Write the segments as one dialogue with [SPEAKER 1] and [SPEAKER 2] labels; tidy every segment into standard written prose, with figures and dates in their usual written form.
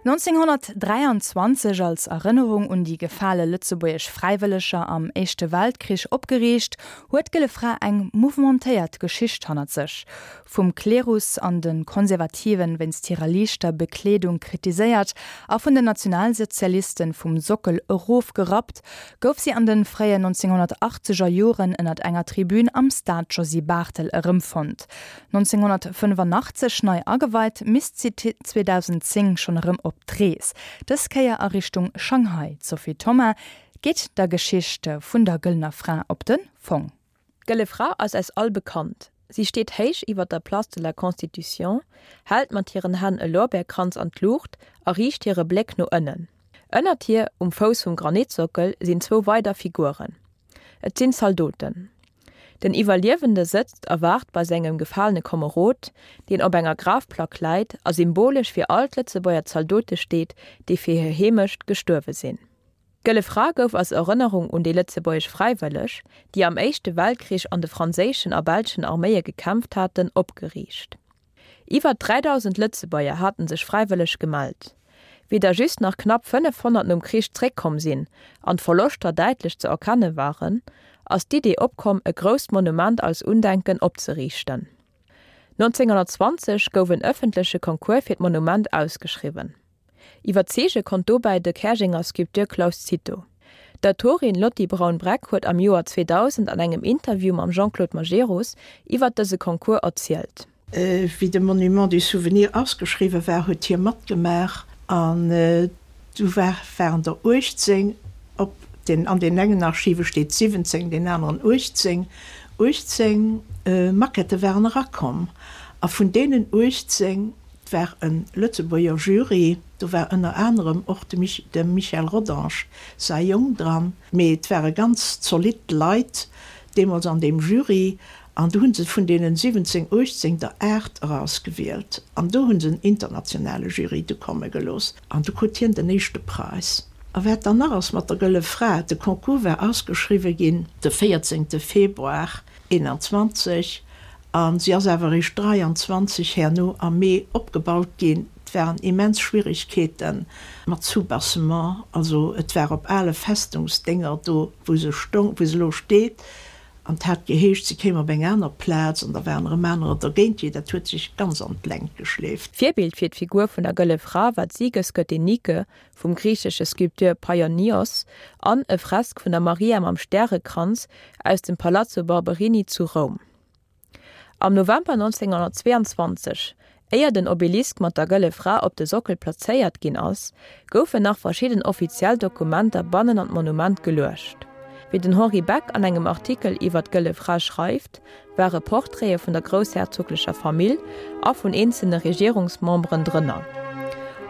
[SPEAKER 1] 1923 als Erënnerung un déi gefale lëtzebuergesch Fräiwëlleger am Éischte Weltkrich opgeriicht, huet d'Gëlle Fra eng mouvementéiert Geschicht hannert sech. Vum Klerus an de Konservativen wéinst hirer liichter Bekleedung kritiséiert a vun den Nationalsozialisten vum Sockel erofgerappt, gouf si an de fréien 1980er Joren ënnert enger Tribün am Stade Josy Barthel erëmfonnt. 1985 nei ageweit, misst si 2010 schonn erëm op d'Rees, dës Kéier a Richtung Shanghai. D'Sophie Thoma geet der Geschicht vun der Gëllener Fra op de Fong.
[SPEAKER 2] D'Gëlle Fra ass eis all bekannt. Si steet héich iwwer der Place de la Constitution, hält mat hiren Hänn e Lorbeerkranz an d'Luucht a riicht hire Bléck no ënnen. Ënnert hir, um Fouss vum Granitsockel, sinn zwou weider Figuren. Et sinn Zaldoten. Den Iwwerliewende sëtzt a waart bei sengem gefalene Komerod, deen op enger Grafplack läit a symbolesch fir all d'Lëtzebuerger Zaldote steet, déi fir hir Heemecht gestuerwe sinn. D'Gëlle Fra gouf als Erënnerung un déi lëtzebuergesch Fräiwëlleg, déi am Éischte Weltkrich an de franséischen a belschen Arméie gekämpft haten, opgeriicht. Iwwer 3.000 Lëtzebuerger haten sech fräiwëlleg gemellt. Wéi der just nach knapp 500 nom Krich zréckkomm sinn an d'Verloschter däitlech ze erkenne waren, ass d'Idee opkomm e grousst Monument als Undenken opzeriichten. 1920 gouf en ëffentleche Concours fir d'Monument ausgeschriwwen. Iwwerzeege konnt dobäi de Käerjenger Sculpteur Claus Cito. D'Autorin Lotty Braun-Breck huet am Joer 2000 an engem Interview mam Jean-Claude Majerus iwwert dëse Concours erzielt.
[SPEAKER 3] Wéi de Monument du Souvenir ausgeschriwwe war, huet hie matgemaach an du waren der 18, op den, an deenen engen Archive steet 17, deen aneren 18, 18 Maquettë waren erakomm a vun deenen 18 Et war e Lëtzebuerger Jury, do war ënner anerem och dem Michel Rodange säi Jong dran, mee et ware ganz zolidd Leit deemools an deem Jury an do hu se vun deenen 17, 18 der 8 erausgewielt an do hu se en internationale Jury du komme gelooss an du krut hien den éischte Präis. A wat dann nach ass mat der Gëlle Fra, de Concours war ausgeschriwwe ginn de 14 Februar 21 A si ass awer eréischt 23 herno am Mee opgebaut ginn. Et waren immens Schwierigkeete mat Soubassement. Also et war op ale Festungsdénger do, wou se stong, wou se elo steet. An et hat geheescht, se kéim op eng aner Plaz an da waren erëm anerer dergéint. Jee, dat huet sech ganz an d'Längt geschleeft.
[SPEAKER 2] Virbild fir d'Figur vun der Gëlle Fra war d'Siegesgöttin Nike vum griichesche Sculpteur Paionios an e Fresk vun der Maria mam Stärekranz aus dem Palazzo Barberini zu Roum. Am November 1922, éier den Obelisk mat der Gëlle Fra op de Sockel plazéiert ginn ass, goufen nach verschidden offiziell Dokumenter bannen an d'Monument geluecht. Wéi den Henri Beck an engem Artikel iwwer d'Gëlle Fra schreift, ware Portraite vun der groussherzoglecher Famill a vun eenzelne Regierungsmemberen drënner.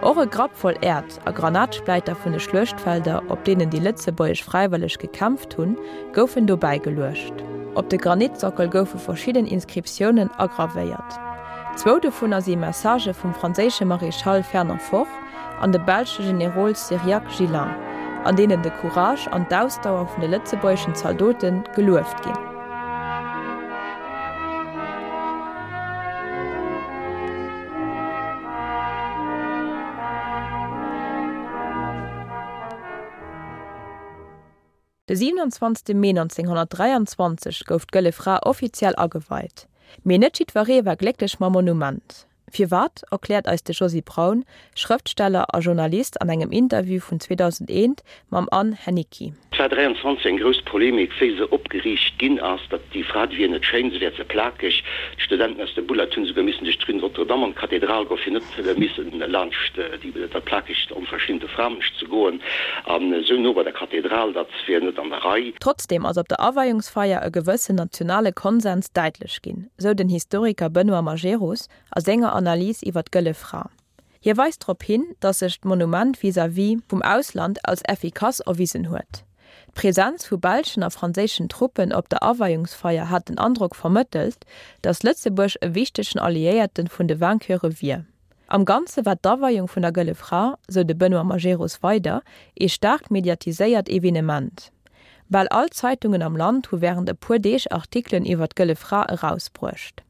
[SPEAKER 2] Och e Grapp voll Äerd a Granatspläiter vun de Schluechtfelder, op deenen déi lëtzebuergesch Fräiwëlleg gekämpft hunn, goufen dobäi geluecht. Op de Granitsockel goufe verschidden Inscriptiounen agravéiert. Zwou dovunner si Messagë vum franséische Maréchal Fernand Foch an dem belsche Generol Cyriaque Gillin, an deenen de Courage an d'Ausdauer vun de lëtzebuergeschen Zaldote gelueft ginn. De 27 Mee 1923 gouf d'Gëlle Fra offiziell ageweit. Mee net jiddweree war glécklech mam Monument. Firwat, erkläert eis de Josy Braun, Schrëftsteller a Journalist an engem Interview vun 2001 mam Anne Henniki.
[SPEAKER 4] Et war 23 eng grouss Polemik, wéi se opgeriicht ginn ass, datt déi Fra, déi wier net schéin, se wär ze plakeg. D'Studenten aus dem Bullard hunn esouguer missen duerch d'Rue Notre-Dame an d'Kathedral goen, fir net missen laanscht déi dat plakegt, onverschinte Framënsch ze goen. An esou no bei der Kathedral, dat wier net an der Rei.
[SPEAKER 2] Trotzdeem ass op der Aweiungsfeier e gewëssen nationale Konsens däitlech ginn, sou den Historiker Benoît Majerus a senger Analys iwwer d'Gëlle Fra. Hie weist drop hin, datt sech d'Monument vis-à-vis vum Ausland als effikass erwisen huet. D'Presenz vu belschen a franséischen Truppen op der Aweiungsfeier hat den Androck vermëttelt, datt Lëtzebuerg e wichtegen Alliéierte vun de Vainqueure wier. Am Ganze war d'Aweiung vun der Gëlle Fra, sou de Benoît Majerus weider, ee staark mediatiséiert Evenement. Bal all d'Zeitungen am Land hu wärend e puer Deeg Artikelen iwwer d'Gëlle Fra erausbruecht.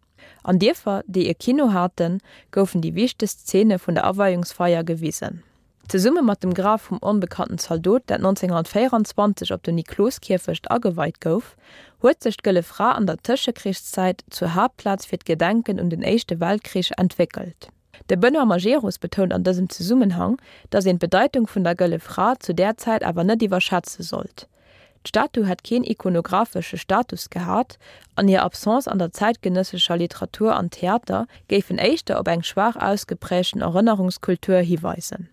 [SPEAKER 2] An Dierfer, déi e Kino haten, goufen déi wichtegst Zeene vun der Aweiungsfeier gewisen. Zesumme mat dem Graf vum onbekannten Zaldot, dat 1924 op dem Nikloskierfecht ageweit gouf, huet sech d'Gëlle Fra an der Tëschekrichszäit zur Haaptplaz fir d'Gedenken un den Éischte Weltkrich entwéckelt. De Benoît Majerus betount an dësem Zesummenhang, datt een d'Bedeitung vun der Gëlle Fra zu där Zäit awer net iwwerschätze sollt. D'Statu hätt keen ikonographesche Status gehat an hir Absence an der zäitgenëssescher Literatur an Theater géifen éischter op eng schwaach ausgeprägten Erënnerungskultur hiweisen.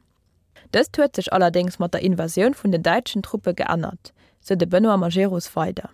[SPEAKER 2] Dëst huet sech allerdéngs mat der Invasioun vun den däitschen Truppe geännert, sou de Benoît Majerus weider.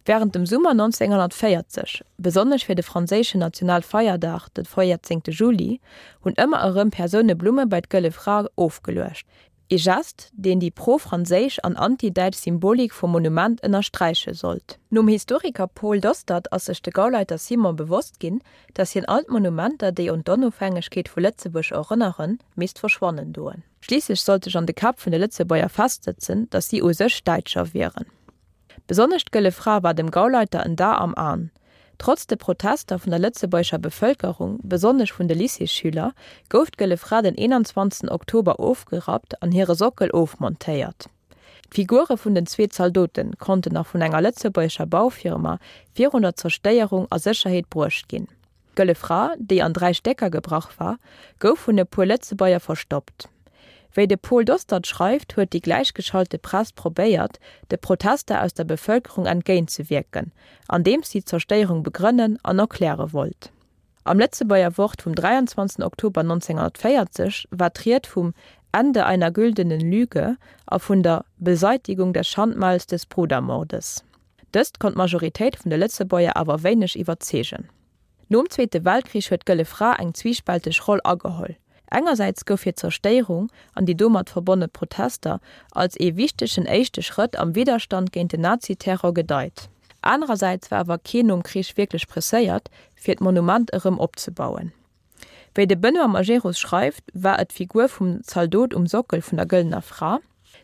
[SPEAKER 2] Wärend dem Summer 1940, besonnesch fir de franséischen Nationalfeierdag, de 14 Juli, hunn ëmmer erëm Persoune Blumme bei d'Gëlle Fra ofgeluecht, Ee Gest, deen déi pro-franséisch an anti-däitsch Symbolik vum Monument ënnersträiche sollt. Nom Historiker Paul Dostert ass sech de Gauleiter Simon bewosst ginn, datt hien all d'Monumenter, déi un d'Onofhängegkeet vu Lëtzebuerg erënneren, misst verschwannen doen. Schliisslech sollt sech an de Käpp vun de Lëtzebuerger festsëtzen, datt si u sech Däitscher wieren. Besonnesch d'Gëlle Fra war dem Gauleiter en Dar am An. Trotz de Protester vun der lëtzebuergescher Bevëlkerung, besonnesch vun de Lycéesschüler, gouf d'Gëlle Fra den 21 Oktober ofgerappt an hire Sockel ofmontéiert. D'Figure vun den zwee Zaldote konnten nach vun enger lëtzebuergescher Baufirma virun der Zerstéierung a Sécherheet bruecht ginn. D'Gëlle Fra, déi an 3 Stécker gebrach war, gouf vun e puer Lëtzebuerger verstoppt. Wéi de Paul Dostert schreift, huet déi gläichgeschalte Press probéiert, de Protester aus der Bevëlkerung entgéintzewierken, andeems si d'Zerstéierung begrënnen an erkläre wollt. Am Lëtzebuerger Wort vum 23 Oktober 1940 war d'Ried vum Ende einer güldenen Lüge a vun der Beseitigung des Schandmals des Brudermordes. Dëst konnt d'Majoritéit vun de Lëtzebuerger awer wéineg iwwerzeegen. Nom Zweete Weltkrich huet d'Gëlle Fra eng zwiispälteg Roll ageholl. Engersäits gouf hir Zerstéierung an déi domat verbonne Protester als ee wichtegen éischte Schrëtt am Widderstand géint den Naziterror gedeit. Anerersäits war awer keen nom Krich wierklech presséiert, fir d'Monument erëm opzebauen. Wéi de Benoît Majerus schreift, war et d'Figur vum Zaldot um Sockel vun der Gëllener Fra,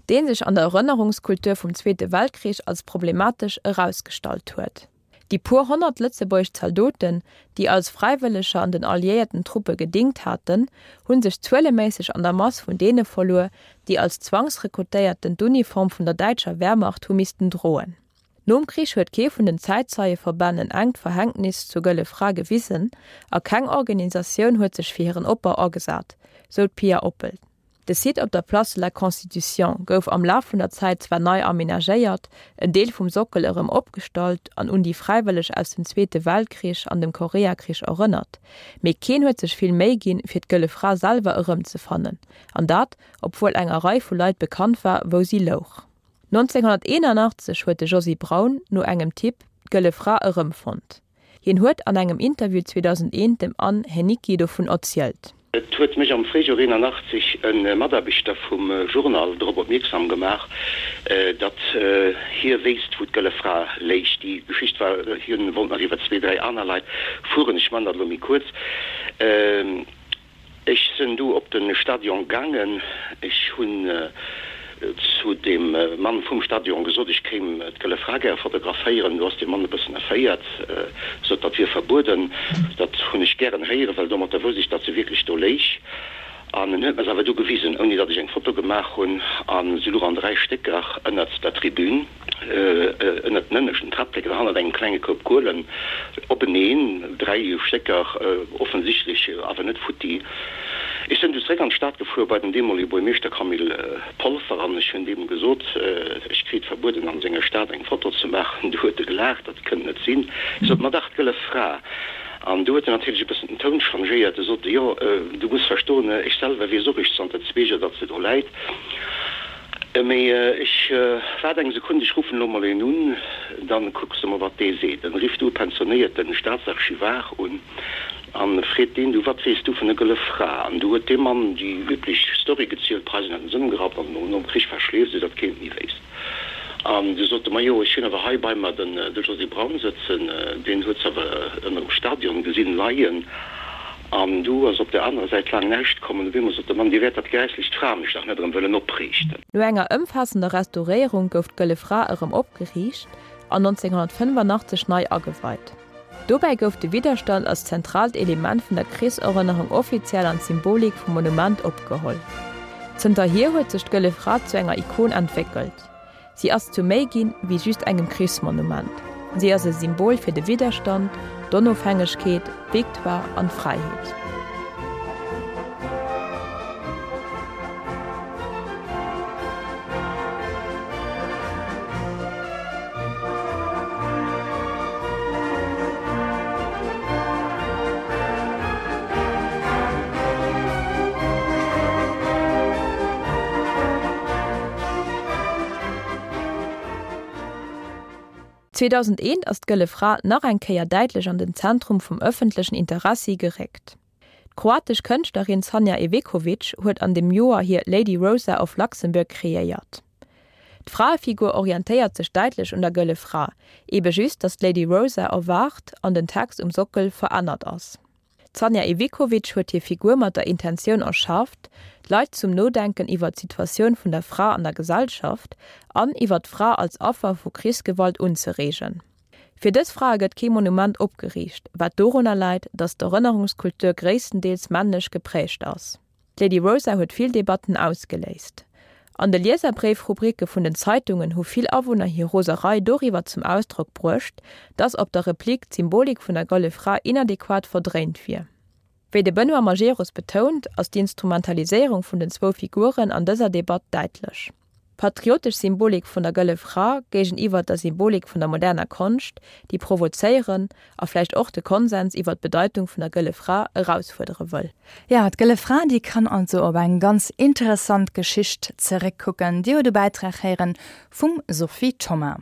[SPEAKER 2] dee sech an der Erënnerungskultur vum Zweete Weltkrich als problematesch erausgestallt huet. Déi puer 100 lëtzebuergesch Zaldoten, déi als Fräiwëlleger an den alliéierten Truppe gedingt haten, hu sech zueleméisseg an der Mass vun deene verluer, déi als Zwangsrekrutéierten d'Uniform vun der däitscher Wehrmacht hu missten droen. Nom Krich huet kee vun den Zäitzeieverbänn en enkt Verhängtnis zur Gëlle Fra gewisen a keng Organisatioun huet sech fir hiren Opbau agesat, sou d'Pia Oppel. De Site op der Place de la Constitution gouf am Laf vun der Zäit zwar nei amenagéiert, en Deel vum Sockel erëm opgestallt an un déi Fräiwëlleg aus dem Zweete Weltkrich an dem Koreakrich erënnert, mee keen huet sech vill Méi ginn, fir d'Gëlle Fra selwer erëmzefannen, an dat, obwuel enger Rei vu Leit bekannt war, wou si louch. 1981 huet de Josy Braun no engem Tipp d'Gëlle Fra erëmfonnt. Hien huet an engem Interview 2001 dem Anne Heniqui dovun erzielt.
[SPEAKER 4] Et huet mech am Fréijoer 81 e Mataarbechter vum Journal drop opmierksam gemaach, datt hie wéisst, wou d'Gëlle Fra léich. Déi Geschicht war, hien wollt nach iwwer zwee, dräi aner Leit fueren, ech man dat elo méi kuerz. Ech sen du op den Stadion gaangen. Ech hun zu dem Mann vum Stadion gesot, ech kéim d'Gëlle Fra gäre fotograféieren. Du ass dee Mann e bëssen erféiert, sot, dat wier verbueden. Dat hun ech gären héieren, well domatter wousst ech, datt se wierklech do léich. An en huet mer se awer du gewisen, ouni datt ech eng Foto gemaach hun. A se luch an 3 Stécker ënnert der Tribün. Ënnert den ënneschten Trappleken, hannert engem klenge Koup Kuelen, openeen, 3 Stécker, offensichtlech awer net futti. Ech sënn du zeréck an d'Stad gefuer bei den deemolige Buermeeschter Camille Polfer an ech hunn deem gesot, ech kriit verbueden an senger Stad eng Foto ze maachen. Du huet e gelaacht, dat kënnt net sinn. Ech sot, ma dach, d'Gëlle Fra. An du huet en natierlech e bëssen den Toun changéiert. E sot, jo, du muss verstoen, ech selwer weess och eréischt zanter zwee Joer, datt se do läit. Mee ech waart eng Sekunn, ech ruffen elo mol een un, dann kucks de mol wat dee seet. En rifft du e pensionéierten Staatsarchivar un an freet deen, du wat weess du vun der Gëlle Fra? An du huet dee Mann déi üblech Story gezielt, d'Preisen hätten se ëmgerappt an nom Krich verschleeft, esou datt keen et méi wéisst. An du sot e, majo ech hunn awer hei bei mer den de Josy Braun sëtzen, deen huet se awer ënner dem Stadion gesinn leien. An du ass op der anerer Säit laang näischt komm, an op eemol sot de Mann, Dir wäert dat gräisslecht Framech dach net erëm wëllen opriichten.
[SPEAKER 2] No enger ëmfaassender Restauréierung gouf d'Gëlle Fra erëm opgeriicht an 1985 nei ageweit. Dobäi gouf de Widderstand als zentraalt Element vun der Krichserënnerung offiziell an d'Symbolik vum Monument opgeholl. Zënterhier huet sech d'Gëlle Fra zu enger Ikon entwéckelt. Si ass zu méi ginn, wéi just engem Krichsmonument. Si ass e Symbol fir de Widderstand, d'Onofhängegkeet, d'Victoire an d'Fräiheet. 2001 ass d'Gëlle Fra nach eng Kéier däitlech an den Zentrum vum ëffentlechen Interessi geréckt. D'kroatesch Kënschtlerin Sanja Iveković huet an dem Joer hir Lady Rosa of Luxembourg kreéiert. D'Fraefigur orientéiert sech däitlech un der Gëlle Fra, ebe just datt d'Lady Rosa erwaacht an den Text um Sockel verännert ass. D'Sanja Iveković huet hir Figur mat der Intentioun erschaaft, d'Leit zum Nodenken iwwer d'Situatioun vun der Fra an der Gesellschaft an iwwer d'Fra als Affer vu Krichsgewalt unzereegen. Fir dës Frae gëtt kee Monument opgeriicht, wat dorunner läit, datt d'Erënnerungskultur gréisstendeels männlech geprägt ass. D'Lady Rosa huet vill Debatten ausgeléist. An de Lieserbréif-Rubricke vun den Zeitungen hu vill Awunner hir Roserei doriwwer zum Ausdrock bruecht, datt op der Replik d'Symbolik vun der Gëlle Fra inadequat verdréint wier. Wéi de Benoît Majerus betount, ass d'Instrumentaliséierung vun den zwou Figuren an dëser Debatt däitlech. D'patriotesch Symbolik vun der Gëlle Fra géigeniwwer der Symbolik vun der moderner Konscht, déi provozéieren a vläicht och de Konsens iwwer d'Bedeitung vun der Gëlle Fra erausfuerdere wëll.
[SPEAKER 1] Jo, d'Gëlle Fra, déi kann also op eng ganz interessant Geschicht zeréckkucken. Dir hutt e Bäitrag héieren vum Sophie Thoma.